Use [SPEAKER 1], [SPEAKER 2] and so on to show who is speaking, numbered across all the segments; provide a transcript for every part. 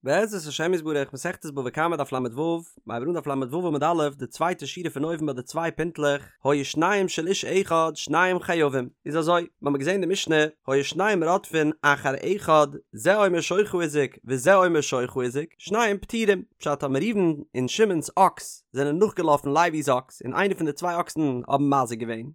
[SPEAKER 1] בעזרת השם יתברך, מסכת בבא קמא דף ל"ו, מ'הייבט אן דף ל"ו עמוד א', די צווייטע שורה פון אויבן ביי די צוויי פינטלעך, היו שניהם של איש אחד שניהם חייבים, איז אזוי, מ'האמיר געזען די משנה, היו שניהם רודפין אחר אחד, זה אומר שורך הזיק וזה אומר שורך הזיק, שניהם פטורים, פשט אז ראובן און שמעון'ס אקס זענען נאכגעלאפן לוי'ס אקס און איינער פון די צוויי אקסן האבן מזיק געווען,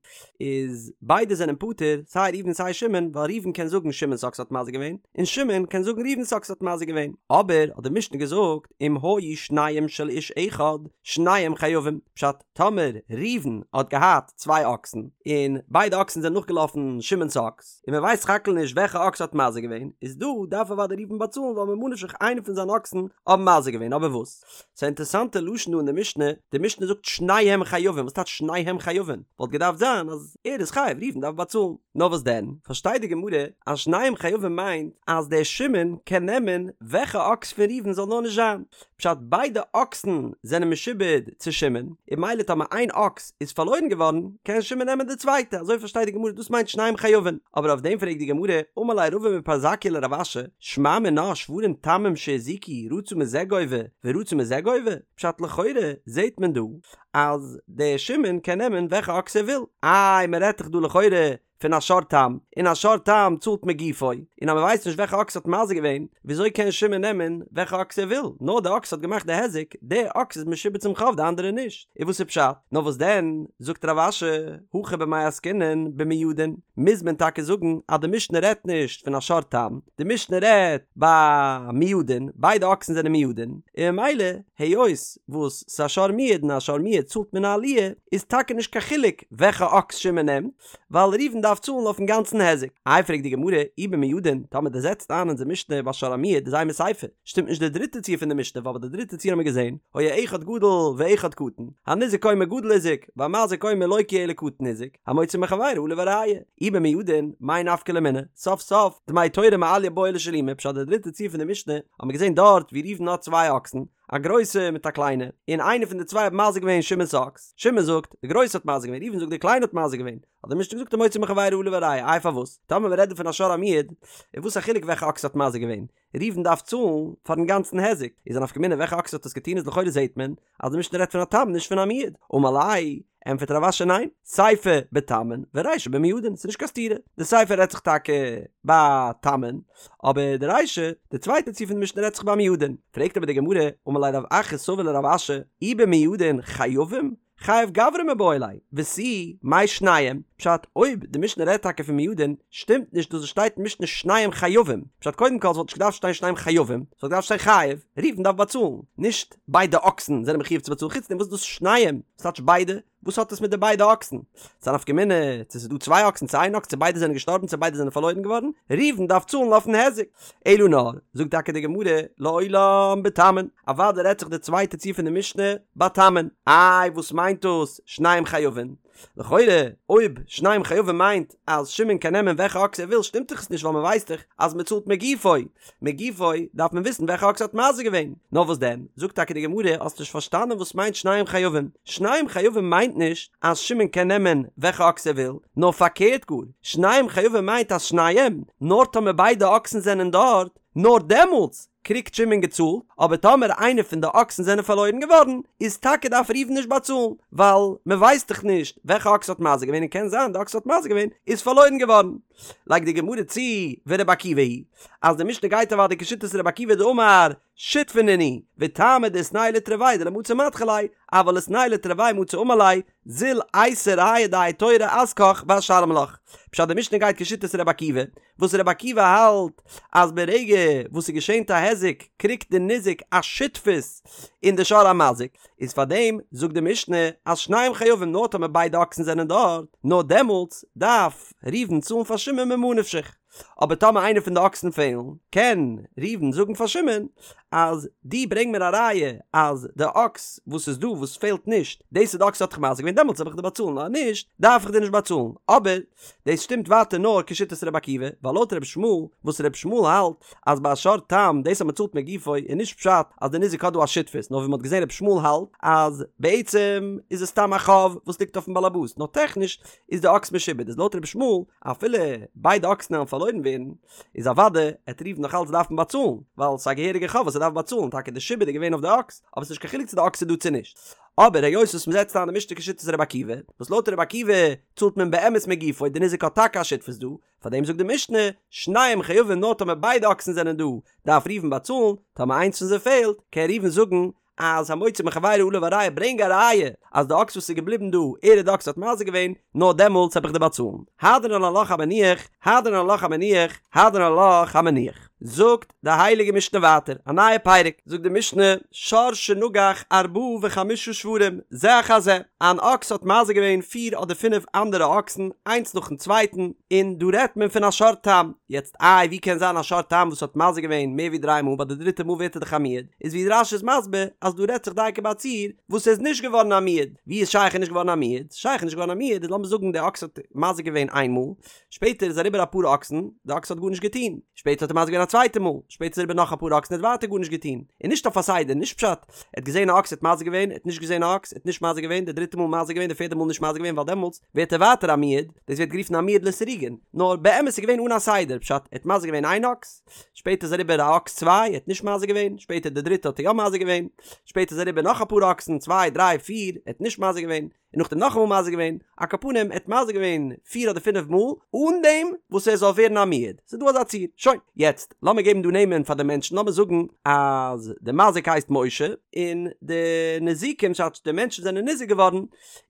[SPEAKER 1] איז ביידע זענען פטור, סיי ראובן סיי שמעון, ווייל ראובן קען זאגן שמעון'ס אקס האט מזיק געווען, און שמעון קען זאגן ראובן'ס אקס האט מזיק געווען. אבער האט די משנה געזאגט אם היו שניהם של איש אחד, שניהם חייבים, פשט, טאמער ראובן האט געהאט צוויי אקסן, און ביידע אקסן זענען נאכגעלאפן שמעון'ס אקס, און מען ווייסט סך הכל נישט וועלכע אקס האט מזיק געווען, איז דא דארף אוודאי ראובן באצאלן ווייל ממה נפשך איינער פון זיינע אקסן האבן מזיק געווען, אבער וואס? ס'איז א אינטערעסאנטע לשון דא אין די משנה, די משנה זאגט שניהם חייבים, וואס טייטש שניהם חייבים? וואלט געדארפט זיין אז ער איז חייב, ראובן דארף באצאלן. נאר וואס דען, פארשטייט די גמרא אז שניהם חייבים מיינט אז דער שמעון קען נעמען וועלכע אקס פון ראובן זאל נאר נישט זיין, פשט ביידע אקסן זענען משועבד צו שמעון, און ממילא טאמער איין אקס איז פארלוירן געווארן קען שמעון נעמען די צווייטע, אזוי פארשטייט די גמרא דאס מיינט שניהם חייבים, אבער אויף דעם פרעגט די גמרא, אמר ליה רבא מפרזקיא לרב אשי, שמע מינה שוורים תמים שהזיקו רצה מזה גובה ורצה מזה גובה, פשט לכאורה זעהט מען דא אז דער שמעון קען נעמען וועלכע אקס ער וויל, איי מען רעדט דאך דא לכאורה פון א שור תם, און א שור תם צאלט מגופו, און אז מען ווייסט נישט וועלכע אקס האט מזיק געווען, וויאזוי קען שמעון נעמען וועלכע אקס ער וויל, נאר די אקס האט געמאכט די היזק, די אקס איז משועבד צום חוב די אנדערע נישט, איז וואס איז פשט? נאר וואס דען, זאגט רב אשי, הכא במאי עסקינן במועדין, מוז מען טאקע זאגן אז די משנה רעדט נישט פון א שור תם, די משנה רעדט ביי מועדין, ביידע אקסן זענען מועדין, און ממילא היות וואס ס'איז א שור מועד און א שור מועד צאלט מן העליה, איז טאקע נישט קיין חילוק וועלכע אקס שמעון נעמט, ווייל ראובן דארף צאלן אויפן גאנצן היזק. איי פרעגט די גמרא, אי במועדין, טאמער דו זעצט איין אונזער משנה ביי שור המועד איז אימא סיפא, שטימט נישט די דריטע ציור פון די משנה ווייל ביי די דריטע ציור האמיר געזען, היה אחד גדול ואחד קטן, הניזק אומר גדול הזיק, והמזיק אומר לא כי אלא קטן הזיק, המוציא מחבירו עליו הראיה. אי במועדין, מאי נפקא ליה מינה, סוף סוף, דמי תורא מעליא בעי לשלומי, פשט די דריטע ציור פון די משנה, האמיר געזען דארט ווי ראובן האט צוויי אקסן, א גרויסע מיט א קליינע, און איינע פון די צוויי האט מזיק געווען שמעון'ס אקס, שמעון זאגט, די גרויסע האט מזיק געווען, ראובן זאגט די קליינע האט מזיק געווען, האט די משנה געזאגט המוציא מחבירו עליו הראיה, איי פארוואס? טאמער מ'רעדט דא פון א שור המועד, איז וואס א חילוק וועלכע אקס האט מזיק געווען? ראובן דארף צאלן פארן גאנצן היזק, איז א נפקא מינה וועלכע אקס האט עס געטון איז לכאורה זעהט מען אז די משנה רעדט פון א תם נישט פון א מועד, אמר ליה, ענטפערט רב אשי ניין, סיפא בתמין ורישא במועדין, ס'איז נישט קיין סתירה, די סיפא רעדט זיך טאקע ביי תמין, אבער די רישא, די צווייטע ציור פון די משנה רעדט זיך ביי מועדין, פרעגט אבער די גמרא, אמר ליה רב אחא סבא לרב אשי, אי במועדין חייבים? חייב גברא מיבעי ליה, ותו, מאי שניהם, פשט, אויב די משנה רעדט טאקע פון מועדין, שטימט נישט דאס וואס שטייט אין משנה שניהם חייבים, פשט קודם כל ס'וואלט נישט געדארפט שטיין שניהם חייבים, ס'וואלט געדארפט שטיין חייב, ראובן דארף באצאלן, נישט ביידע אקסן זענען מחיוב צו באצאלן, חוץ דעם וואס איז דאס שניהם? וואס טייטש ביידע? וואס האט עס מיט די ביידע אקסן? ס'איז א נפקא מינה צו ס'איז דא צוויי אקסן צו איין אקס צו ביידע זענען געשטארבן צו ביידע זענען פארלוירן געווארן, ראובן דארף צאלן אויפן היזק. אלא נאר, זאגט טאקע די גמרא, לעולם בתמין, אוודאי רעדט זיך די צווייטע ציור פון די משנה ביי תמין. איי וואס מיינט דאס שניהם חייבין? לכאורה אויב שניהם חייבים מיינט אז שמעון קען נעמען וועלכע אקס ער וויל שטימט דאך עס נישט ווייל מ'ווייסט דאך אז מ'צאלט מגופו, מגופו דארף מען וויסן וועלכע אקס האט מזיק געווען. נאר וואס דען, זאגט טאקע די גמרא, האסט נישט פארשטאנען וואס מיינט שניהם חייבים. שניהם חייבים מיינט נישט אז שמעון קען נעמען וועלכע אקס ער וויל, נאר פארקערט גאר, שניהם חייבים מיינט אז שניהם, נאר טאמער ביידע אקסן זענען דארט, נאר דעמאלטס קריגט שמעון געצאלט, אבער טאמער איינע פון די אקסן זענען פארלוירן געווארן, איז טאקע דארף ראובן נישט באצאלן, ווייל מען ווייסט דאך נישט וועלכע אקס האט מזיק געווען און קען זיין די אקס האט מזיק געווען איז פארלוירן געווארן. לייגט די גמרא צו ורבי עקיבא היא אז די משנה גייט אוודאי כשיטת רבי עקיבא דאמר שותפי נינהו וטעמא דאיתנהו לתרוייהו דלא מצי מדחי ליה אבל איתנהו לתרוייהו מצי אמר ליה זיל אייתי ראיה דהאי תורא אזקך ואשלם לך פשט די משנה גייט כשיטת רבי עקיבא וואס רבי עקיבא האלט אז ברגע וואס ס'געשענט א היזק קריגט די ניזק א שותפות אין די שור המזיק איז פאר דעם זאגט די משנה אז שניהם חייבים נאר טאמער ביידע אקסן זענען דארט, נאר דעמאלטס דארף ראובן צאלן פאר שמעון ממה נפשך, אבער טאמער איינער פון די אקסן פעלן, קען ראובן זאגן פאר שמעון אז דו ברענג מיר א ראיה אז די אקס וואס איז דא וואס פעלט נישט, דאס איז די אקס האט דיך מזיק געווען דעמאלטס וועל איך דיר באצאלן אז נישט דארף איך דיר נישט באצאלן, אבער דאס שטימט ווייטער נאר כשיטת רבי עקיבא, ווייל לויט רבי ישמעאל, וואס רבי ישמעאל האלט אז ביי א שור תם דאס אז מען צאלט מגופו איז נישט פשט אז די ניזק האט דא א שותפות, נאר ווי מען האט געזען רבי ישמעאל האלט אז בעצם איז עס סתם א חוב וואס ליגט אויפן באלעבאס, נאר טעכניש איז די אקס משועבד, איז לויט רבי ישמעאל אפילו ביידע אקסן וועלן פארלוירן. פארלוירן ווערן, איז אוודאי עט ראובן נאך אלץ דארפן באצאלן, ווייל ס'איז א געהעריגע חוב וואס ער דארף באצאלן, טאקע די שעבוד איז געווען אויף די אקס, אבער ס'נישט קיין חילוק צו די אקס איז דא צו נישט. אבער היות וואס מ'זעצט איין די משנה כשיטת רבי עקיבא, וואס לויט רבי עקיבא צאלט מען באמת מגופו, די ניזק האט טאקע א שותפות דא, פארדעם זאגט די משנה, שניהם חייבים נאר טאמער ביידע אקסן זענען דא, דארף ראובן באצאלן, טאמער איינס פון זיי פעלט, קען ראובן זאגן אז המוציא מחבירו עליו הראיה ברענג א ראיה אז די אקס וואס איז געבליבן דא, ער איז די אקס האט מזיק געווען, נאר דעמאלטס העב איך דיר באצאלן. הדרן עלך המניח, הדרן עלך המניח, הדרן עלך המניח. זאגט די הייליגע משנה ווייטער, א נייע פרק, זאגט די משנה, שור שנגח ארבעה וחמשה שוורים, זה אחר זה, אן אקס האט מזיק געווען פיר אדער פינף אנדערע אקסן, איינס נאכן צווייטן, און דא רעדט מען פון א שור תם, יעצט איי ווי קען זיין א שור תם וואס האט מזיק געווען מער ווי דריי מאל ביי די דריטע מאל ווערט ער דאך א מועד, איז ווי רש"י איז מסביר אז דא רעדט זיך דייקא ביי א ציור וואס איז נישט געווארן א מועד, ווי איז שייך איז נישט געווארן א מועד? שייך נישט געווארן א מועד איז לאמיר זאגן די אקס האט מזיק געווען איין מאל, שפעטער איז אריבער אפאר אקסן, די אקס האט גארנישט געטון, שפעטער האט ער מזיק געווען א צווייטע מאל, שפעטער איז אריבער נאך אפאר אקסן ער האט ווייטער גארנישט געטון, און נישט אויף א סדר, נישט פשט, ער האט געזען א אקס ער האט מזיק געווען, ער האט נישט געזען א אקס, ער האט נישט מזיק געווען, די דריטע מאל מזיק געווען, די פערדע מאל נישט מזיק געווען ווייל דעמאלטס ווערט ער ווייטער א מועד, דאס ווערט גערופן א מועד לסירוגין, נאר באמת איז געווען אן א סדר, פשט, ער האט מזיק געווען איין אקס, שפעטער איז אריבער א אקס צוויי, ער האט נישט מזיק געווען, שפעטער די דריטע האט ער יא מזיק געווען, שפעטער איז אריבער נאך אפאר אקסן, צוויי, דריי, פיר, ער האט נישט מזיק געווען, און נאכדעם נאכאמאל מזיק געווען, על כל פנים ער האט מזיק געווען פיר אדער פינף מאל אן דעם וואס ער זאל ווערן א מועד, ס'איז דא אזא ציור, שוין, יעצט לאמיר געבן דא נעמען פאר די מענטשן, לאמיר זאגן אז די מזיק הייסט משה, און די ניזוקים ס'טייטש די מענטשן זענען ניזוק געווארן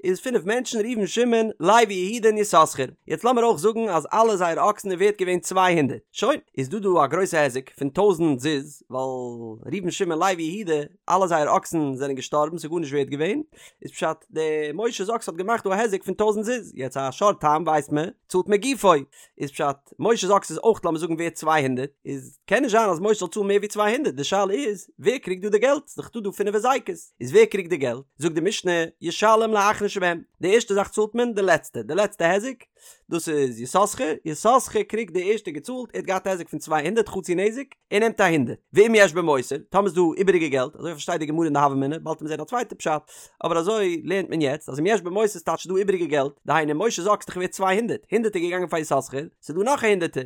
[SPEAKER 1] איז פינף מענטשן ראובן שמעון לוי יהודה און יששכר, יעצט לאמיר אויך זאגן אז אלע זייערע אקסן איז ווערט געווען 200, שוין, איז דא דא א גרויסע היזק פון טויזנט זוז, ווייל ראובן שמעון לוי יהודה אלע זייערע אקסן זענען געשטארבן ס'איז גארנישט ווערט געווען, איז פשט די משה'ס אקס האט געמאכט דא א היזק פון טויזנט זוז, יעצט א שור תם ווייסט מען צאלט מגופו, איז פשט משה'ס אקס איז אויך לאמיר זאגן ווערט 200, איז קען נישט זיין אז משה זאל צאלן מער ווי 200, די שאלה איז ווער קריגט דא די געלט, ס'איז דאך דא דא פינף היזקות, איז ווער קריגט די געלט, זאגט די משנה ישלם לאחרון שבהם, די ערשטע זאך צאלט מען די לעצטע, די לעצטע היזק, דאס איז יששכר, יששכר קריגט די ערשטע געצאלט, ער האט געהאט א היזק פון 200 חצי נזק, ער נעמט א הונדערט, ואם יש בו מותר, טאמער איז דא איבעריגע געלט, אזוי פארשטייט די גמרא אין די הוה אמינא, באלד וועט מען זען א צווייטע פשט, אבער אזוי לערנט מען יעצט, אז אם יש בו מותר ס'טייטש ס'איז דא איבעריגע געלט, דהיינו משה'ס אקס איז דאך ווערט 200, הונדערט איז געגאנגען פאר יששכר, ס'איז דא נאך א הונדערטער,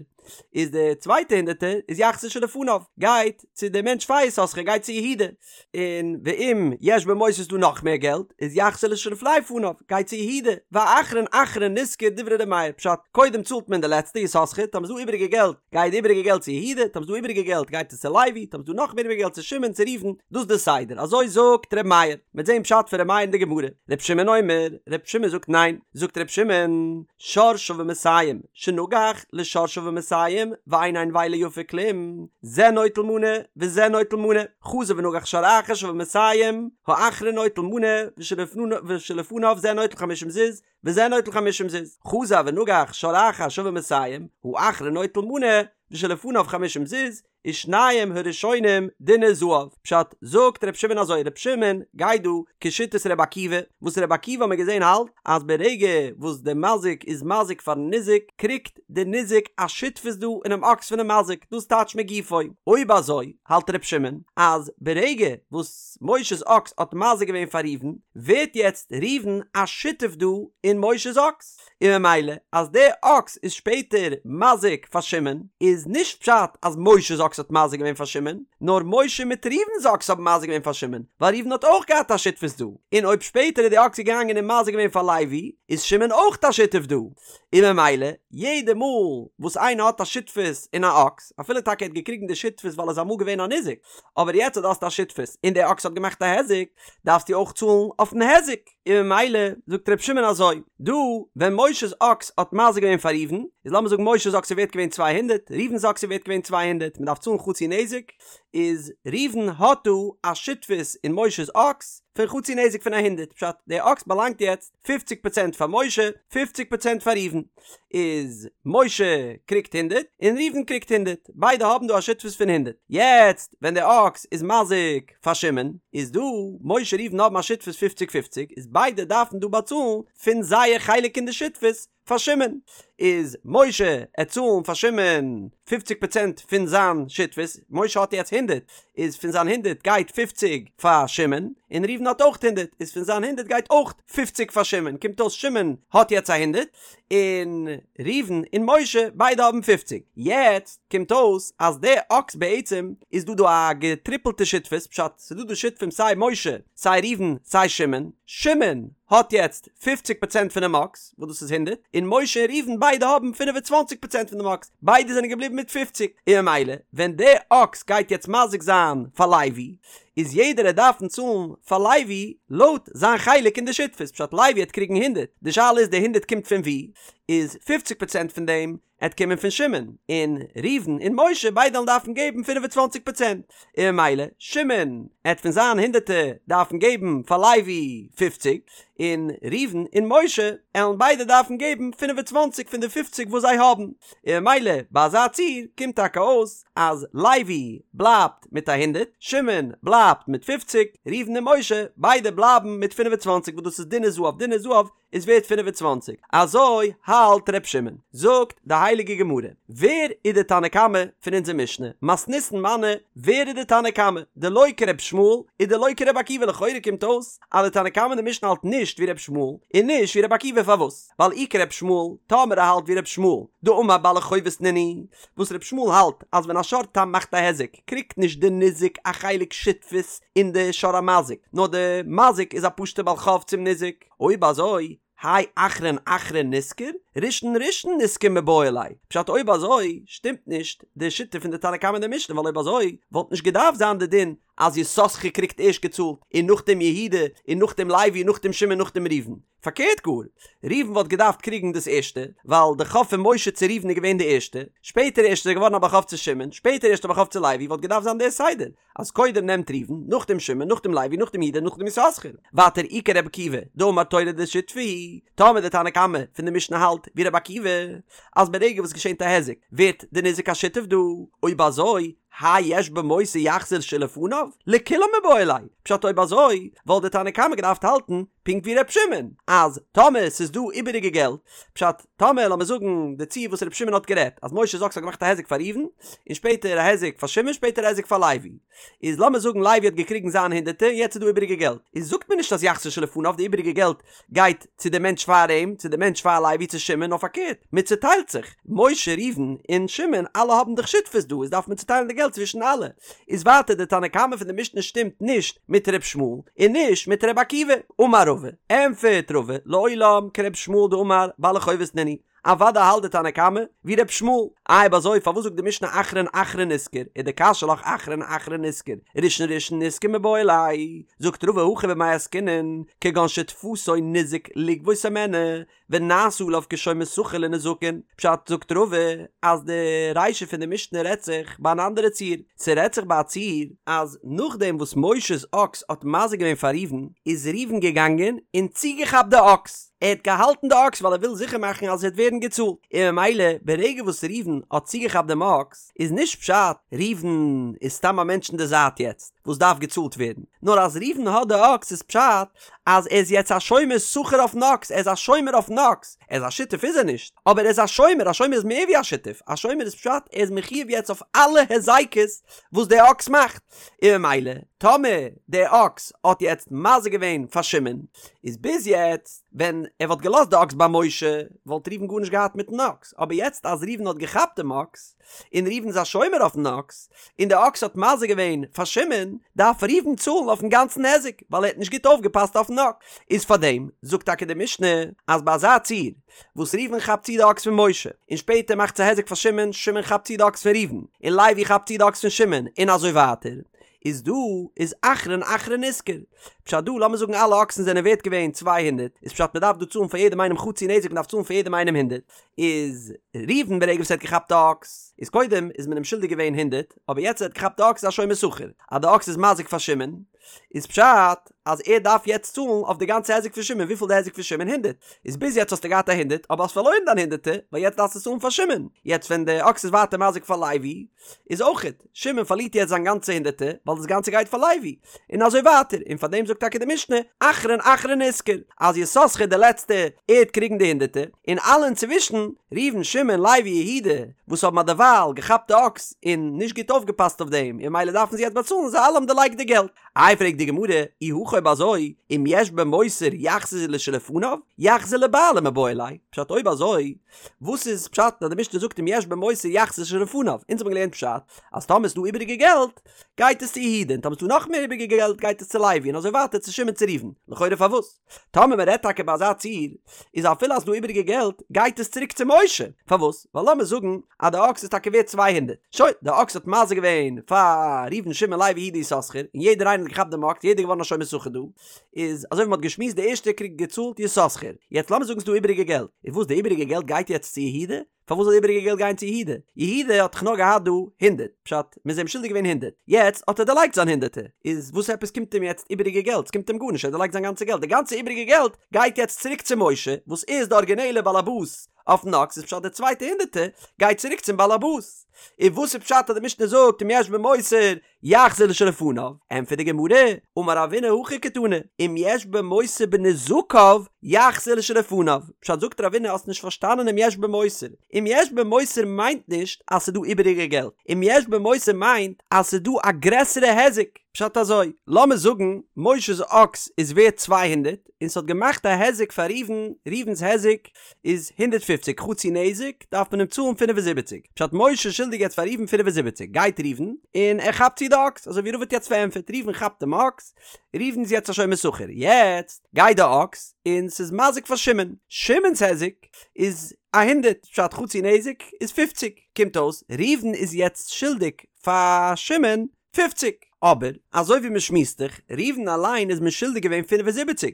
[SPEAKER 1] איז די צווייטע הונדערטער איז יחזיר לשלפניו, גייט צו די מענטש פאר יששכר, גייט צו יהודה, און ואם יש בו מותר איז דא נאך מער געלט, איז יחזיר לשלפני פניו, גייט צו יהודה, והאחרון אחרון נשכר דברי ר' מאיר, פשט, קודם צאלט מען די לעצטע יששכר, טאמער איז דא איבעריגע געלט, גייט די איבעריגע געלט צו יהודה, טאמער איז דא איבעריגע געלט גייט עס צו לוי, טאמער איז דא נאך מער איבעריגע געלט צו שמעון צו ראובן, דאס איז די סדר, אזוי זאגט ר' מאיר, מ'וועט זען פשט פון ר' מאיר אין די גמרא, ר' שמעון אומר, ר' שמעון זאגט ניין, זאגט ר' שמעון, שור שווה מאתים, שנגח לשור שווה מאתים, ואין הנבילה יפה כלום, זה נוטל מנה וזה נוטל מנה, חזר ונגח שור אחר שווה מאתים, האחרון נוטל מנה, ושלפניו זה נוטל חמישים זוז, וזה נוטל חמישים זוז, חזר ונגח שור אחר שווה מאתים, האחרון נוטל מנה, ושלפניו חמישים זוז, ושנים הראשונים דינר זהב, פשט, זאגט ר' שמעון אזוי, ר' שמעון גייט דא כשיטת ר' עקיבא, וואס ר' עקיבא האט מען געזען האלט אז ברגע וואס די מזיק איז מזיק פארן ניזק, קריגט די ניזק א שותפות דא אינעם אקס פונעם מזיק, דאס טייטש מגופו. אויב אזוי האלט ר' שמעון אז ברגע וואס משה'ס אקס האט מזיק געווען פאר ראובן, ווערט יעצט ראובן א שותף דא אין משה'ס אקס. און ממילא אז דער אקס איז שפעטער מזיק פאר שמעון, איז נישט פשט אז משה'ס אקס האט מזיק געווען פאר שמעון, נאר משה מיט ראובן'ס אקס האבן מזיק געווען פאר שמעון, ווייל ראובן האט אויך געהאט א שותפות דא, און אויב שפעטער איז די אקס געגאנגען און מזיק געווען פאר לוי, איז שמעון אויך א שותף דא, און ממילא יעדע מאל וואס איינער האט א שותפות אין א אקס, אפילו טאקע ער האט געקריגן די שותפות ווייל ער איז אמאל געווען א ניזק, אבער יעצט אז דו האסט א שותפות און די אקס האט געמאכט א היזק, דארפסטו אויך צאלן אויפן היזק. און ממילא זאגט ר' שמעון אזוי, דא ווען משה'ס אקס האט מזיק געווען פאר ראובן, איז לאמיר זאגן משה'ס אקס איז ווערט געווען 200, ראובן'ס אקס איז ווערט געווען 200, מען דארף צאלן חצי נזק, איז ראובן האט דא א שותפות אין משה'ס אקס פון חצי נזק פון א הונדערט, פשט, די אקס באלאנגט יעצט פופציג פראצענט פאר משה, פופציג פראצענט פאר ראובן, איז משה קריגט הונדערט און ראובן קריגט הונדערט, ביידע האבן דא א שותפות פון הונדערט, יעצט ווען די אקס איז מזיק פאר שמעון, איז דא משה ראובן האבן א שותפות פופציג פופציג, איז ביידע דארפן דא באצאלן פון זייער חלק אין די שותפות פאר שמעון, איז משה עט צאלן פאר שמעון פופציג פראצענט פון זיין שותפות, משה האט יעצט הונדערט. הונדערט, איז פון זיין הונדערט גייט פופציג פאר שמעון, און ראובן האט אויך הונדערט, איז פון זיין הונדערט גייט אויך פופציג פאר שמעון, קומט אויס שמעון האט יעצט א הונדערט, און ראובן און משה ביידע האבן פופציג. יעצט קומט אויס אז די אקס בעצם איז דא דא א געטריפלטע שותפות, פשט ס'איז דא דא שותפים סיי משה סיי ראובן סיי שמעון, שמעון האט יעצט פופציג פראצענט פונעם אקס, וואס דאס איז הונדערט, און משה און ראובן ביידע האבן פינף און צוואנציג פראצענט פון דעם אקס, ביידע זענען געבליבן מיט פופציג, און ממילא ווען די אקס גייט יעצט מזיק זיין פאר לוי, איז יעדער עט דארפן צאלן פאר לוי לויט זיין חלק אין די שותפות, פשט לוי עט קריגן הונדערט, די שאלה איז די הונדערט קומט פון וואו, איז פופציג פראצענט פון דעם עט קומען פון שמעון, און ראובן און משה ביידע וועלן דארפן געבן פינף און צוואנציג פראצענט, און ממילא שמעון עט פון זיין הונדערטער דארפן געבן פאר לוי פופציג, און ראובן און משה עלן ביידע דארפן געבן פינף און צוואנציג פון די פופציג וואס זיי האבן, און ממילא ביי אזא ציור קומט טאקע אויס אז לוי בלייבט מיט א הונדערט, שמעון בלייבט מיט פופציג, ראובן און משה ביידע בלייבן מיט פינף און צוואנציג וואס דאס איז דינר זהב דינר זהב איז ווערט 25, אזוי האלט ר' שמעון. זאגט די הייליגע גמרא, ווער איז די תנא קמא פון אונזער משנה? מתניתין מני, ווער איז די תנא קמא? דלא כר' ישמעאל ודלא כר' עקיבא לכאורה קומט אויס אז די תנא קמא אין די משנה האלט נישט ווי ר' ישמעאל און נישט ווי ר' עקיבא פארוואס? ווייל אי כר' ישמעאל, טאמער ער האלט ווי ר' ישמעאל, דאמר בעלי חובות נינהו, וואס ר' ישמעאל האלט אז ווען א שור תם מאכט א היזק קריגט נישט די ניזק א חלק שותפות אין די שור המזיק נאר די מזיק איז א פשוטע בעל חוב צום ניזק, אויב אזוי, האי אחרון אחרון נשכר, ראשון ראשון נשכר מיבעי ליה. פשט אויב אזוי שטימט נישט די שיטה פון די תנא קמא אין די משנה ווייל אויב אזוי וואלט נישט געדארפט זיין די דין אז יששכר קריגט ערשט געצאלט און נאכדעם יהודה און נאכדעם לוי און נאכדעם שמעון נאכדעם ראובן. פארקערט גאר, ראובן וואלט געדארפט קריגן דאס ערשטע, ווייל די חוב פון משה צו ראובן איז געווען די ערשטע, שפעטער ערשט איז ער געווארן א בעל חוב צו שמעון, שפעטער ערשט א בעל חוב צו לוי, וואלט געדארפט זיין דער סדר, אז קודם נעמט ראובן, נאכדעם שמעון, נאכדעם לוי, נאכדעם יהודה, נאכדעם יששכר. ווייטער אי כרבי עקיבא, דאמר תורא דשותפי הוא, טאמער די תנא קמא פון די משנה האלט ווי רבי עקיבא, אז ברגע וואס געשענט א היזק ווערט די ניזק א שותף דא, אויב אזוי, האי יש בו מותר יחזיר שלפניו, לכולם מיבעי ליה, פשט אויב אזוי וואלט די תנא קמא געדארפט האלטן פונקט ווי ר' שמעון, אז טאמער ס'איז דא איבעריגע געלט, פשט, טאמער לאמיר זאגן די ציור וואס ר' שמעון האט גערעדט, אז משה'ס אקס האט געמאכט א היזק פאר ראובן, און שפעטער א היזק פאר שמעון שפעטער א היזק פאר לוי, איז לאמיר זאגן לוי האט געקריגן זיין הונדערטער און יעצט איז דא איבעריגע געלט, איז זאגט מען נישט אז יחזיר שלפניו די איבעריגע געלט גייט צו די מענטש פאר אים, צו די מענטש פאר לוי צו שמעון, נאר פארקערט, מען צוטיילט זיך, משה ראובן און שמעון אלע האבן דאך שותפות דא, איז דארף מען צוטיילן די געלט צווישן אלע. איז ווייטער די תנא קמא פון די משנה שטימט נישט מיט ר' ישמעאל און נישט מיט ר' עקיבא. אמר רבא, ענפערט רבא, לעולם כר' ישמעאל דאמר בעלי חובות נינהו, אוודאי האלט די תנא קמא ווי ר' ישמעאל. איי אויב אזוי פארוואס זאגט די משנה אחרון אחרון נשכר, ודקשיא לך אחרון אחרון נשכר, ראשון ראשון נשכר מיבעי ליה, זאגט רבא הכא במאי עסקינן, כגון שתפסו ניזק לגבות הימנו, ונעשה עליו כשומר שכר לנזקין, פשט זאגט רבא אז די רישא פון די משנה רעדט זיך ביי אן אנדערע ציור, ס'רעדט זיך ביי א ציור אז נאכדעם וואס משה'ס אקס האט מזיק געווען פאר ראובן איז ראובן געגאנגען און צוגעכאפט די אקס, ער האט געהאלטן די אקס ווייל ער וויל זיכער מאכן אז עס וועט ווערן געצאלט, און ממילא ברגע וואס ראובן האט צוגעכאפט דעם אקס איז נישט פשט ראובן איז סתם א מענטש אין די זייט יעצט וואס דארף געצאלט ווערן, נאר אז ראובן האט די אקס איז פשט אז ער איז יעצט א שומר שכר אויפן אקס, ער איז א שומר אויפן אקס, ער איז א שותף איז ער נישט, אבער ער איז א שומר, א שומר איז מער ווי א שותף, א שומר איז פשט ער איז מחיוב יעצט אויף אלע היזקות וואס דער אקס מאכט, און ממילא טאמער דער אקס האט יעצט מזיק געווען פאר שמעון, איז ביז יעצט ווען ער וואלט געלאזט די אקס ביי משה וואלט ראובן גארנישט געהאט מיטן אקס, אבער יעצט אז ראובן האט געכאפט דעם אקס, און ראובן איז א שומר אויפן אקס, און די אקס האט מזיק געווען פאר שמעון, דארף ראובן צאלן אויפן גאנצן היזק, ווייל ער האט נישט גוט אויפגעפאסט אויפן אקס. איז פארדעם זאגט טאקע די משנה, אז ביי אזא ציור, וואס ראובן כאפט צו די אקס פון משה, און שפעטער מאכט עס א היזק פאר שמעון, שמעון כאפט צו די אקס פון ראובן, און לוי כאפט צו די אקס פון שמעון, און אזוי ווייטער, איז דא איז אחרון אחרון נשכר. פשט דא, לאמיר זאגן אלע אקסן זענען ווערט געווען 200, איז פשט מ'דארף דא צאלן פאר יעדעם איינעם חצי נזק, מ'דארף צאלן פאר יעדעם איינעם הונדערט, איז ראובן ברגע וואס ער האט געכאפט די אקס, איז קודם איז מען אים שולדיג געווען הונדערט, אבער יעצט ער האט געכאפט די אקס איז א שומר שכר, אז די אקס איז מזיק פאר שמעון. איז פשט אז ער דארף יעצט צאלן אויף די גאנצע היזק פון שמעון, וויפיל די היזק פון שמעון? הונדרעט, איז ביז יעצט האסטו געהאט א הונדרעט אבער האסט פארלוירן דיין הונדרעטע ווייל יעצט דארפסטו צאלן פאר שמעון, יעצט ווען די אקס איז ווייטער מזיק פאר לוי איז אויכעט, שמעון פארלירט יעצט זיין גאנצע הונדרעטע ווייל דאס גאנצע גייט פאר לוי, און אזוי ווייטער, און פאר דעם זאגט טאקע די משנה, אחרון אחרון נשכר, אז יששכר די לעצטע, ער וועט קריגן די הונדרעטע, און אלע אינצווישן, ראובן שמעון לוי יהודה, וואס האבן אדערווייל געכאפט די אקס און נישט גוט אויפגעפאסט אויף דעם, און ממילא דארפן זיי יעצט באצאלן, זיי אלע האבן דערלייגט די געלט. איי פרעגט די גמרא, אי הכי אויב אזוי, אם יש במותר יחזיר לשלפניו, יחזיר לבעלים מיבעי ליה, פשט אויב אזוי, וואס איז פשט אז די משנה זאגט אם יש במותר יחזיר לשלפניו? אונז האבן געלערנט פשט אז טאמער איז דא איבעריגע געלט גייט עס צו יהודה און טאמער איז דא נאך מער איבעריגע געלט גייט עס צו לוי און אזוי ווייטער צו שמעון צו ראובן, לכאורה פארוואס? טאמער מען רעדט טאקע ביי אזא ציור איז אפילו אז ס'דא איבעריגע געלט גייט עס צוריק צו משה, פארוואס? ווייל לאמיר זאגן אז די אקס איז טאקע ווערט 200, שוין, די אקס האט מזיק געווען פאר ראובן שמעון לוי יהודה יששכר און יעדער איינער האט געכאפט דעם אקס יעדער געווארן א שומר שכר דא, איז אזוי ווי מ'האט געשמועסט די ערשטע קריגט געצאלט יששכר, יעצט לאמיר זאגן ס'דא איבעריגע געלט, איז וואס די איבעריגע געלט גייט יעצט צו יהודה? פארוואס זאל די איבעריגע געלט גיין צו יהודה? יהודה האט דאך נאר געהאט דא הונדרעט, פשט מ'איז אים שולדיג געווען הונדרעט, יעצט האט ער דערלייגט זיין הונדרעטער, איז וואס עפעס קומט אים יעצט איבעריגע געלט? ס'קומט אים גארנישט, ער האט דערלייגט זיין גאנצע געלט, די גאנצע איבעריגע געלט גייט יעצט צוריק צו משה וואס איז די ארגינעלע באלעבאס אויפן אקס, איז פשט די צווייטע הונדרעטער גייט צוריק צום באלעבאס, איז וואס איז פשט אז די משנה זאגט אם יש במותר יחזיר לשלפניו, ענטפערט די גמרא, אמר רבינא הכי קתני, אם יש במותר בנזקיו יחזיר לשלפניו, פשט זאגט רבינא האסט נישט פארשטאנען אם יש במותר, אם יש במותר מיינט נישט אז ס'דא איבעריגע געלט, אם יש במותר מיינט אז ס'דא א גרעסערע היזק, פשט אזוי, לאמיר זאגן משה'ס אקס איז ווערט 200, און ס'האט געמאכט א היזק פאר ראובן, ראובן'ס היזק איז 150, חצי נזק דארף מען אים צאלן 75, פשט משה איז שולדיג יעצט פאר ראובן 75, גייט ראובן און ער כאפט צו די אקס, אזוי ווי רבא האט יעצט פארענטפערט, ראובן כאפט דעם אקס, ראובן איז יעצט א שומר שכר, יעצט גייט די אקס און ס'איז מזיק פאר שמעון, שמעון'ס היזק איז א הונדערט, פשט חצי נזק איז פופציג, קומט אויס ראובן איז יעצט שולדיג פאר שמעון פופציג. אבער, אזוי ווי מען שמועסט דאך, ראובן אליין איז מען שולדיג געווען 75,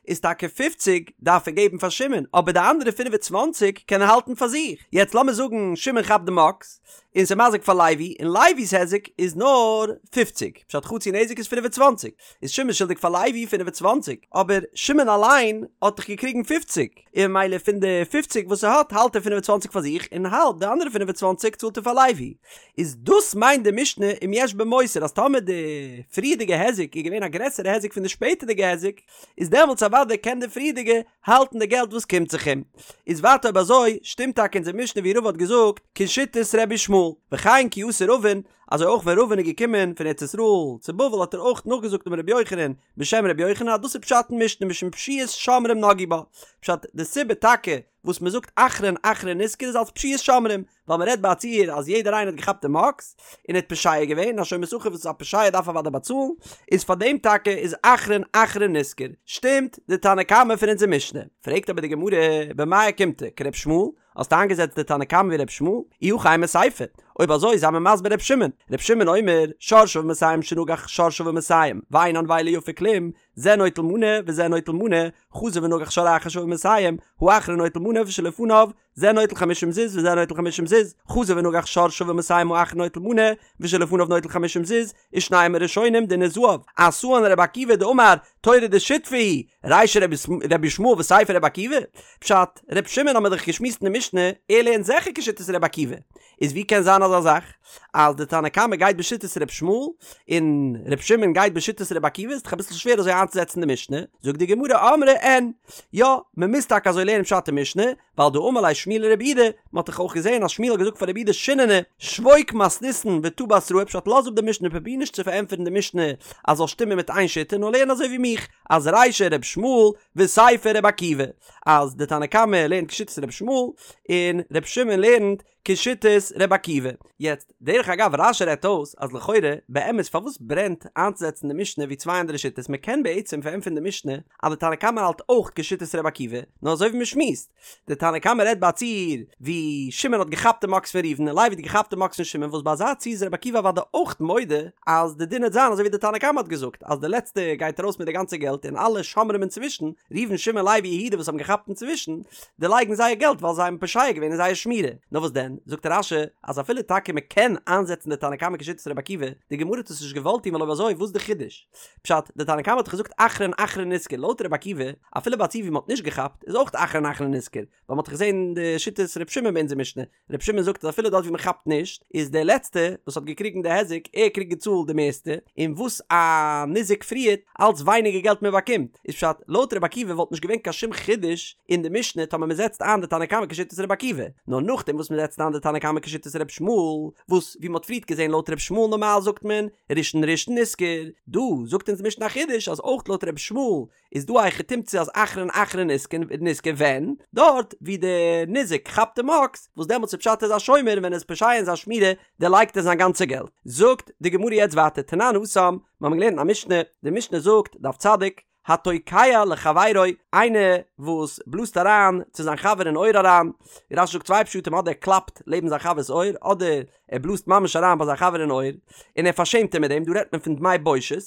[SPEAKER 1] איז טאקע פופציג דארף ער געבן פאר שמעון, אבער די אנדערע 25 קען ער האלטן פאר זיך. יעצט לאמיר זאגן שמעון כאפט דעם אקס, און ס'איז מזיק פאר לוי, און לוי'ס היזק איז נאר פופציג, פשט חצי נזק איז 25, איז שמעון שולדיג פאר לוי 25, אבער שמעון אליין האט דאך געקריגן פופציג. און ממילא פון די פופציג וואס ער האט האלט ער 25 פאר זיך און האלב די אנדערע 25 צאלט ער פאר לוי. איז דאס מיינט די משנה אם יש במותר אז טאמער די פריערדיגע היזק איז געווען א גרעסערע היזק פון די שפעטערדיגע היזק איז דעמאלטס אוודאי קען די פריערדיגע האלטן די געלט וואס קומט זיך אים. איז ווייטער אויב אזוי שטימט טאקע אונזער משנה ווי רבא האט געזאגט כשיטת רבי ישמעאל וכן כי אתא רבין אזוי אויך ווען רבין איז געקומען פון ארץ ישראל צו בבל האט ער אויך נאכגעזאגט אמר רבי יוחנן בשם רבי יוחנן אז דאס איז פשט אין משנה משום פשיעת שומרים נגעו בה, פשט די סיבה טאקע וואס מען זאגט אחרון אחרון נשכר איז אלס פשיעת שומרים, ווייל מען רעדט ביי א ציור אז יעדער איינער האט געכאפט דעם אקס און ער האט פושע געווען, א שומר שכר וואס איז א פושע דארף אוודאי באצאלן, איז פאר דעם טאקע איז אחרון אחרון נשכר, שטימט די תנא קמא פון אונזער משנה? פרעגט אבער די גמרא במאי אוקימתא כר' ישמעאל, האסט איינגעזעצט די תנא קמא ווי ר' ישמעאל? אי הכי אימא סיפא. אויב אזוי זיי מיר מסביר ר' שמעון. ר' שמעון אומר, שור שוה מאתים שנגח שור שוה מאתים, ואין הנבילה יפה כלום, זה נוטל מנה וזה נוטל מנה, חזר ונגח שור אחר שוה מאתים, האחרון נוטל מנה ושלפניו, זה נוטל חמישים זוז וזה נוטל חמישים זוז, חזר ונגח שור שוה מאתים האחרון נוטל מנה, ושלפניו נוטל חמישים זוז, ושנים הראשונים דינו זהב, אתאן רבי עקיבא דאמר תורה דשותפי היא, רישא רבי ישמעאל וסיפא רבי עקיבא? פשט, ר' שמעון האמיר דאך געשמועסט אין די משנה, ער לערנט זיכער כשיטת רבי עקיבא, איז ווי קען זיין אזא זאך אז די תנא קמא גייט בשיטת ר' ישמעאל און ר' שמעון גייט בשיטת רבי עקיבא, איז דאך אביסל שווער אזוי איינצוזעצן די משנה, זאגט די גמרא אמרי אין, יא, מען מוז טאקע אזוי לערנען פשט אין משנה, ווייל דאמר ליה שמואל לרב יהודה, מען האט דאך אויך געזען אז שמואל האט געזאגט פאר רב יהודה שיננא, שבוק מתניתין ותא בתראי, פשט לאז אפ די משנה פרוביר נישט צו פארענטפערן די משנה אז זאל שטימען מיט איין שיטה נאר לערן אזוי ווי מיך אז רישא ר' ישמעאל וסיפא ר' עקיבא אז די תנא קמא לערנט כשיטת ר' ישמעאל און ר' שמעון לערנט כשיטת ר' עקיבא. יעצט, דרך אגב רש"י רעדט אויס אז לכאורה, באמת פארוואס ברענט איינצוזעצן די משנה ווי צוויי אנדערע שיטות, מען קען בעצם פארענטפערן די משנה אז די תנא קמא האלט אויך כשיטת ר' עקיבא, נאר אזוי ווי מען שמועסט, די תנא קמא רעדט ביי א ציור ווי שמעון האט געכאפט דעם אקס פון ראובן און לוי האט געכאפט דעם אקס פון שמעון וואס ביי אזא ציור איז ר' עקיבא אוודאי אויך מודה אז די דין וועט זיין אזוי ווי די תנא קמא האט געזאגט אז די לעצטע גייט ארויס מיט די גאנצע געלט און אלע שומרים אינצווישן, ראובן שמעון לוי יהודה וואס האבן געכאפט אינצווישן, דערלייגן זייער געלט ווייל זיי האבן פושע געווען אין זייער שמירה. נאר וואס דען, זאגט רש"י, אז אפילו טאקע מען קען איינזעצן די תנא קמא כשיטת רבי עקיבא, די גמרא האט עס נישט געוואלט טון ווייל אויב אזוי וואס איז די חידוש? פשט, די תנא קמא האט דאך געזאגט אחרון אחרון נשכר, לויט רבי עקיבא, אפילו ביי א ציור ווי מ'האט נישט געכאפט, איז אויך אחרון אחרון נשכר, ווייל מ'האט דאך געזען די שיטת ר' שמעון ביי אונזער משנה, ר' שמעון זאגט אז אפילו דארט ווי מ'כאפט נישט, איז דער לעצטע וואס האט געקריגן די היזק, ער קריגט געצאלט די מערסטע, און וואס א ניזק פריערט, אלץ ווייניגער געלט מ'באקומט. איז פשט, לויט רבי עקיבא וואלט נישט געווען קיין שום חידוש אין די משנה טאמער מ'זעצט איין די תנא קמא כשיטת רבי עקיבא, נאר נאכדעם וואס מ'זעצט איין די תנא קמא כשיטת רבי ישמעאל, וואס ווי מ'האט פריערט געזען לויט רבי ישמעאל נארמאל זאגט מען ראשון ראשון נשכר, דא זאגט אונז די משנה א חידוש אז אויך לויט רבי ישמעאל איז דא א היכי תמצא אז אחרון אחרון נשכר ווען? דארט ווי די ניזק כאפט דעם אקס, וואס דעמאלטס איז פשט ער איז א שומר און ווען ער איז פושע אין זיין שמירה דערלייגט ער זיין גאנצע געלט. זאגט די גמרא יעצט ווייטער תנן התם, מיר האבן געלערנט אין א משנה, די משנה זאגט, דף צדיק, התוקע לחבירו, איינער וואס בלאזט אריין צו זיין חבר אין אויער אריין, רש"י זאגט צוויי פשטים אדער ער קלאפט לעבן זיין חבר'ס אויער, אדער ער בלאזט ממש אריין ביי זיין חבר אין אויער, און ער פארשעמט אים מיט דעם, דא רעדט מען פון דמי בושת,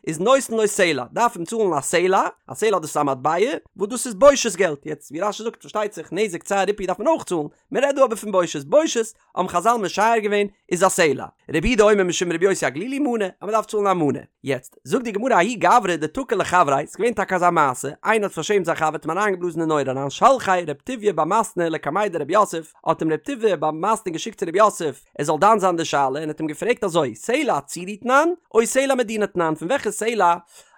[SPEAKER 1] איז נותן לו סלע, דארף אים צאלן א סלע, א סלע דאס איז א מטבע, וואס דאס איז בושת געלט, יעצט ווי רש"י זאגט פארשטייט זיך נזק צער ריפוי דארף מען אויך צאלן, מען רעדט דא אבער פון בושת, בושת האבן חז"ל משער געווען איז א סלע. רבי יהודה אומר משום רבי יוסי הגלילי מנה, אז מען דארף צאלן א מנה. יעצט, זאגט די גמרא ההוא גברא דתקע לחבריה, ס'איז געווען טאקע אזא מעשה, איינער האט פארשעמט זיין חבר האט אים אריינגעבלאזן אין אויער אריין שלחיה רב טוביה בר מתנה לקמיה דרב יוסף, האט אים רב טוביה בר מתנה געשיקט צו רב יוסף ער זאל דן זיין די שאלה און האט אים געפרעגט אזוי, סלע צורי תנן, או סלע מדינה תנן, פון וועלכע סלע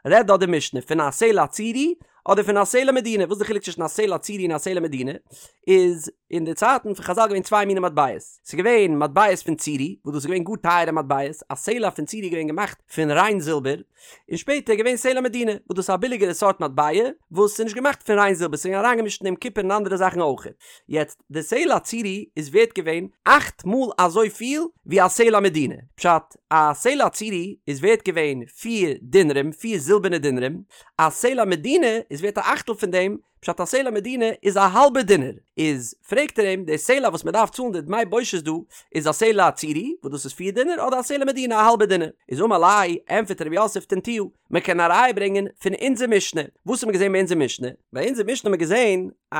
[SPEAKER 1] רעדט דא די משנה, פון א סלע צורי אדער פון א סלע מדינה, וואס איז די חילוק צווישן א סלע צורי און א סלע מדינה? איז אין די צייטן פון חז"ל געווען צוויי מיני מטבעות, ס'איז געווען מטבעות פון צורי, וואס דאס איז געווען גאר טייערע מטבעות, א סלע פון צורי איז געווען געמאכט פון ריין זילבער, און שפעטער איז געווען סלע מדינה, וואס דאס איז א ביליגערע סארט מטבע, וואס איז נישט געמאכט פון ריין זילבער, ס'איז געווען אריינגעמישט אין דעם קופער און אנדערע זאכן אויך. יעצט, די סלע צורי איז ווערט געווען אכט מאל אזוי פיל ווי א סלע מדינה, פשט, א סלע צורי איז ווערט געווען פיר דינרים, פיר זילבערנע דינרים, א סלע מדינה איז ווערט א אכטל פון דעם, פשט א סלע מדינה איז א האלבע דינר, איז פרעגט ער אים, די סלע וואס מען דארף צאלן די דמי בושת דא, איז א סלע צורי, וואס דאס איז פיר דינר, אדער א סלע מדינה א האלבע דינר? איז אמר ליה, ענטפערט רב יוסף תניתוה, מען קען א ראיה ברענגען פון אונזער משנה, וואס האט מען געזען ביי אונזער משנה? ביי אונזער משנה האט מען געזען א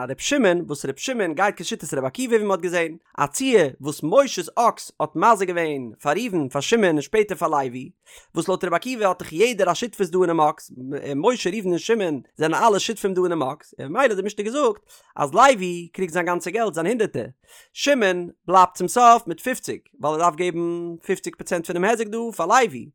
[SPEAKER 1] ר' שמעון, וואס ר' שמעון גייט כשיטת ר' עקיבא ווי מען האט געזען, א ציור וואס משה'ס אקס האט מזיק געווען פאר ראובן פאר שמעון און שפעטער פאר לוי, וואס לויט רבי עקיבא האט דאך יעדער א שותפות דא אינעם אקס, משה ראובן און שמעון זענען אלע שותפים דא אינעם אקס, און ממילא האט די משנה געזאגט אז לוי קריגט זיין גאנצע געלט זיין הונדערטער, שמעון בלייבט צום סוף מיט פופציג, ווייל ער דארף געבן פופציג פראצענט פונעם היזק דא פאר לוי,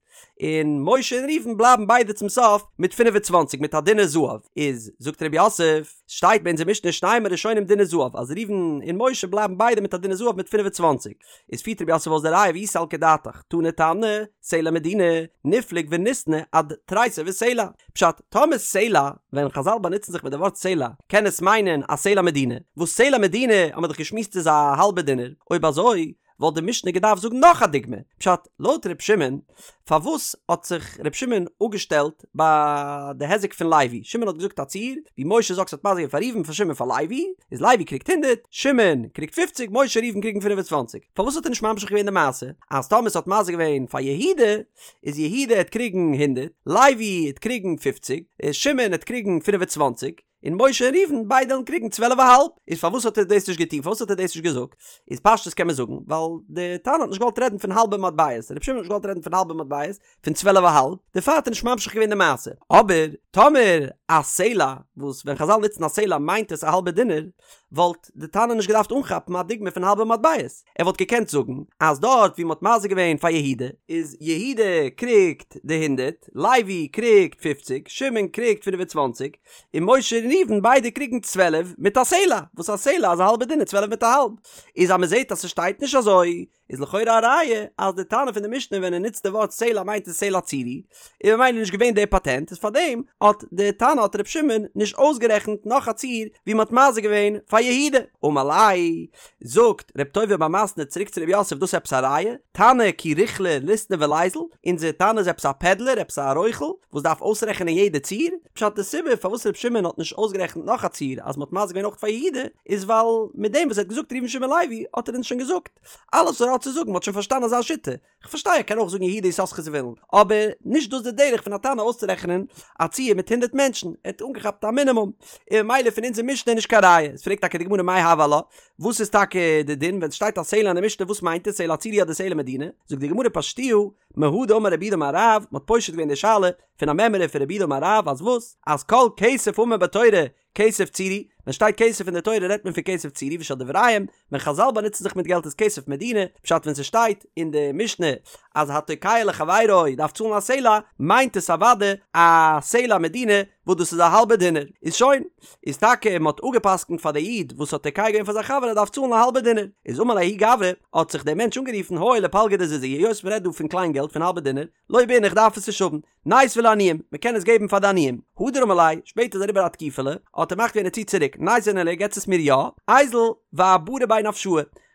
[SPEAKER 1] און משה און ראובן בלייבן ביידע צום סוף מיט פינף און צוואנציג מיט א דינר זהב, איז זאגט רב יוסף, שטייט ביי אונזער משנה שנים הראשונים דינר זהב אז ראובן און משה בלייבן ביידע מיט א דינר זהב מיט פינף און צוואנציג, איז פירט רב יוסף אויס די ראיה ואי סלקא דעתך, תני תנא, סלע מדינה, ניפלוג וניתני עד תריסר וסלע. פשט, טאמער סלע, ווען חזל באנוצן זיך מיט די ווארט סלע, קען עס מיינען א סלע מדינה, וואס סלע מדינה האט מען דאך געשמועסט איז א האלבע דינר, אויב אזוי וואלט די משנה געדארפט זאגן נאך א דוגמא, פשט, לויט ר' שמעון, פארוואס האט זיך ר' שמעון אפגעשטעלט ביי די היזק פון לוי? שמעון האט געזאגט א ציור, ווי משה'ס אקס האט מזיק געווען פאר ראובן פאר שמעון פאר לוי, איז לוי קריגט הונדערט, שמעון קריגט פופציג, משה ראובן קריגן פינף און צוואנציג. פארוואס האט ער נישט ממשיך געווען די מעשה אז טאמער ס'האט מזיק געווען פאר יהודה, איז יהודה העט קריגן הונדערט, לוי העט קריגן פופציג, שמעון העט קריגן פינף און צוואנציג, און משה און ראובן ביידע וועלן קריגן צוועלף א האלב, איז פארוואס האט ער דאס נישט געטון? פארוואס האט ער דאס נישט געזאגט? איז פשטות קען מען זאגן, ווייל די תנא האט נישט געוואלט רעדן פון האלבע מטבעות, רבי שמעון האט נישט געוואלט רעדן פון האלבע מטבעות, פון צוועלף א האלב, דערפאר האט ער נישט ממשיך געווען די מעשה. אבער טאמער א סלע, וואס ווען חזל נוצן א סלע מיינט עס א האלבע דינר, וואלט די תנא נישט געדארפט אנכאפן א דוגמא פון האלבע מטבעות, ער וואלט געקענט זאגן אז דארט ווי מ'האט מזיק געווען פאר יהודה, איז יהודה קריגט די הונדערט, לוי קריגט פופציג, שמעון קריגט פינף און צוואנציג, און משה און ראובן ביידע קריגן צוועלף מיט א סלע, וואס א סלע איז א האלבע דינר צוועלף מיט א האלב, איז אז מ'זעט אז ס'שטייט נישט אזוי, איז לכאורה א ראיה אז די תנא פון די משנה ווען ער נוצט די ווארט סלע מיינט עס סלע צורי, און ממילא נישט געווען די פאטענט, איז פארדעם האט די תנא האט ר' שמעון נישט אויסגערעכנט נאך א ציור ווי מ'האט מזיק געווען פאר יהודה. אמר ליה, זאגט ר' טוביה בר מתנה צוריק צו ר' יוסף דאס עפעס א ראיה? תנא כי רוכלא ליתני וליזיל, אונזער תנא איז עפעס א פעדלער עפעס א רוכל וואס דארף אויסרעכענען יעדע ציור? פשט די סיבה פארוואס ר' שמעון האט נישט אויסגערעכנט נאך א ציור אז מ'האט מזיק געווען אויך פאר יהודה איז ווייל מיט דעם וואס ער האט געזאגט ראובן שמעון לוי האט ער אונז שוין געזאגט אלעס וואס ער האט. האט צו זאגן, מ'האט שוין פארשטאנען אזא שיטה, כ'פארשטיי ער קען אויך זאגן יהודה יששכר זבולון, אבער נישט דאס די דרך פון א תנא אויסצורעכענען א ציור מיט הונדרעט מענטשן, ער האט אנגעכאפט א מינימום, און ממילא פון אונזער משנה איז נישט קיין ראיה, איז פרעגט טאקע די גמרא מאי הוי עלה, וואס איז טאקע די דין ווען ס'שטייט א סלע אין די משנה וואס מיינט עס סלע צורי אדער סלע מדינה, זאגט די גמרא פשטוה מהא דאמר רב יהודה אמר רב, מ'האט פושט געווען די שאלה פון א מימרא פון רב יהודה אמר רב אז וואס? אז כל כסף האמור בתורה כסף צורי, ווען שטייט כסף אין די תורה רעדט מען פון כסף צורי ושל דבריהם, ווען חזל באנוצן זיך מיט געלט איז כסף מדינה, פשט ווען ס'שטייט אין די משנה אז התוקע לחבירו דארף צאלן א סלע, מיינט עס אוודאי א סלע מדינה וואס דאס איז א האלבע דינר, איז שוין, איז טאקע מען האט אפגע'פסק'נט פאר די איד וואס האט תוקע געווען פאר זיין חבר ער דארף צאלן א האלבע דינר, איז אמר ליה ההוא גברא, האט זיך דער מענטש אנגערופן הואיל ופלגא דזוזא היות מען רעדט דא פון קליין געלט פון האלבע דינר, לא בעינא איך דארף עס נישט האבן, ניתביה לעניים, מען קען עס געבן פאר די עניים. הדר אמר ליה, שפעטער איז אריבער א תקופה'לע, האט ער מחליט געווען ער ציט צוריק, ניתביה ניהלי געטס עס מיר יא, איזיל ואברי ביה נפשאי,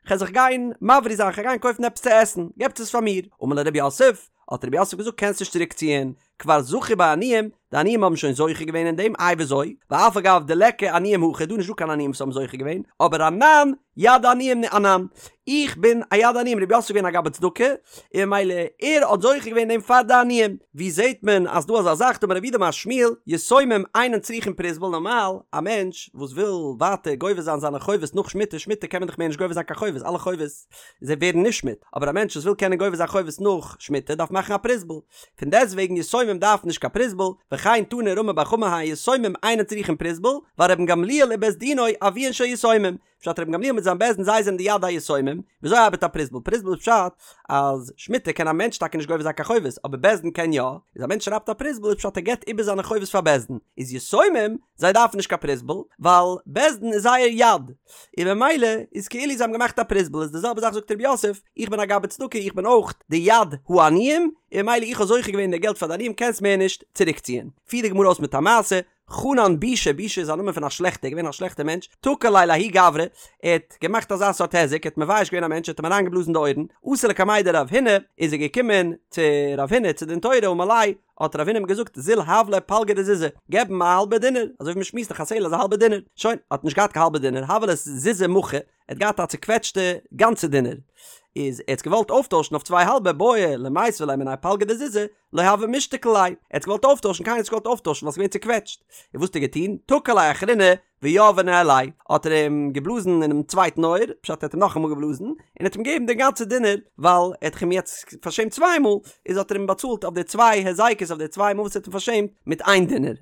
[SPEAKER 1] כ'על זיך גיין מבריא זיין, כ'על גיין קויפן עפעס צו עסן, געבטס עס פאר מיר. אמר ליה רב יוסף, האט רב יוסף געזאגט קענסט נישט צוריק ציען, כבר זכו ביה עניים, די עניים האבן שוין זוכה געווען אין דעם, איי וויאזוי? ואף על גב דליכא עניים הכא, דא איז נישטא קיין עניים וואס האבן זוכה געווען, אבער אנן יד עניים אנן, איך בין א יד עניים, רב יוסף איז געווען א גבאי צדקה, און ממילא ער האט זוכה געווען דעם פאר די עניים. ווי זעט מען אז דא אזא זאך, דאמר רב יהודה אמר שמואל, יתומים אינן צריכין פרוזבול, נארמאל א מענטש וואס וויל ווייטער גובה זיין זיינע חובות נאך שמיטה, שמיטה קען מען דאך מער נישט גובה זיין קיין חובות, אלע חובות זיי ווערן נשמט, אבער א מענטש וואס וויל קענען גובה זיין חובות נאך שמיטה דארף מאכן א פרוזבול, פון דעסטוועגן יתומים דארפן נישט קיין פרוזבול, וכן תני רמי בר חמא הן יתומים אינן צריכין פרוזבול, ווייל רבן גמליאל ובית דינו אביהן של יתומים, פשט רבן גמליאל מיט זיין בית דין זיי זענען די יד היתומים, וויאזוי ארבעט א פרוזבול? פרוזבול איז פשט אז שמיטה קען א מענטש טאקע נישט גובה זיין קיין חובות אבער בית דין קען יא, איז א מענטש שרייבט א פרוזבול איז פשט ער געבט איבער זיינע חובות פאר בית דין, איז יתומים זיי דארפן נישט קיין פרוזבול ווייל בית דין איז זייער יד, און ממילא איז כאילו זיי האבן געמאכט א פרוזבול איז די זעלבע זאך זאגט רב יוסף איך בין א גבאי צדקה איך בין אויך די יד העניים און ממילא איך האב זוכה געווען די געלט פאר די עניים קענסט מער נישט צוריקציען. פירט די גמרא אויס מיט א מעשה, חנן בישא, בישא איז א נאמען פון א שלעכטער, געווען א שלעכטער מענטש, תקע ליה לההוא גברא, ער האט געמאכט אזא סארט היזק, ער האט מבייש געווען א מענטש, ער האט אים אריינגעבלאזן די אויערן, אתא לקמיה דרב הונא, איז ער געקומען צו רב הונא צו דין תורה, אמר ליה, האט רב הונא אים געזאגט, זיל הב ליה פלגא דזוזא, געב אים א האלבע דינר, אזוי ווי מען שמועסט דאך א סלע איז א האלבע דינר, שוין, האט נישט געהאט קיין האלבע דינר, הוה ליה זוזא מחוי, ער האט געהאט א צוקוועטשטע גאנצע דינר, איז ער האט עס געוואלט אויפטוישן אויף צוויי האלבע, בעי למיתבה ליה מיניה פלגא דזוזא, לא הוה משתקיל ליה, ער האט געוואלט אויפטוישן, קיינער האט נישט געוואלט אויפטוישן ווייל ס'איז געווען צוקוועטשט, און וואס האט ער געטון? תקע ליה אחרינא ויהביה ניהליה, האט ער אים געבלאזן אינעם צווייטן אויער, פשט ער האט אים נאכאמאל געבלאזן, און האט אים געגעבן די גאנצע דינר, ווייל ער האט דאך אים יעצט פארשעמט צוויי מאל, איז האט ער אים באצאלט אויף די צוויי היזקות אויף די צוויי מאל וואס ער האט אים פארשעמט מיט איין דינר.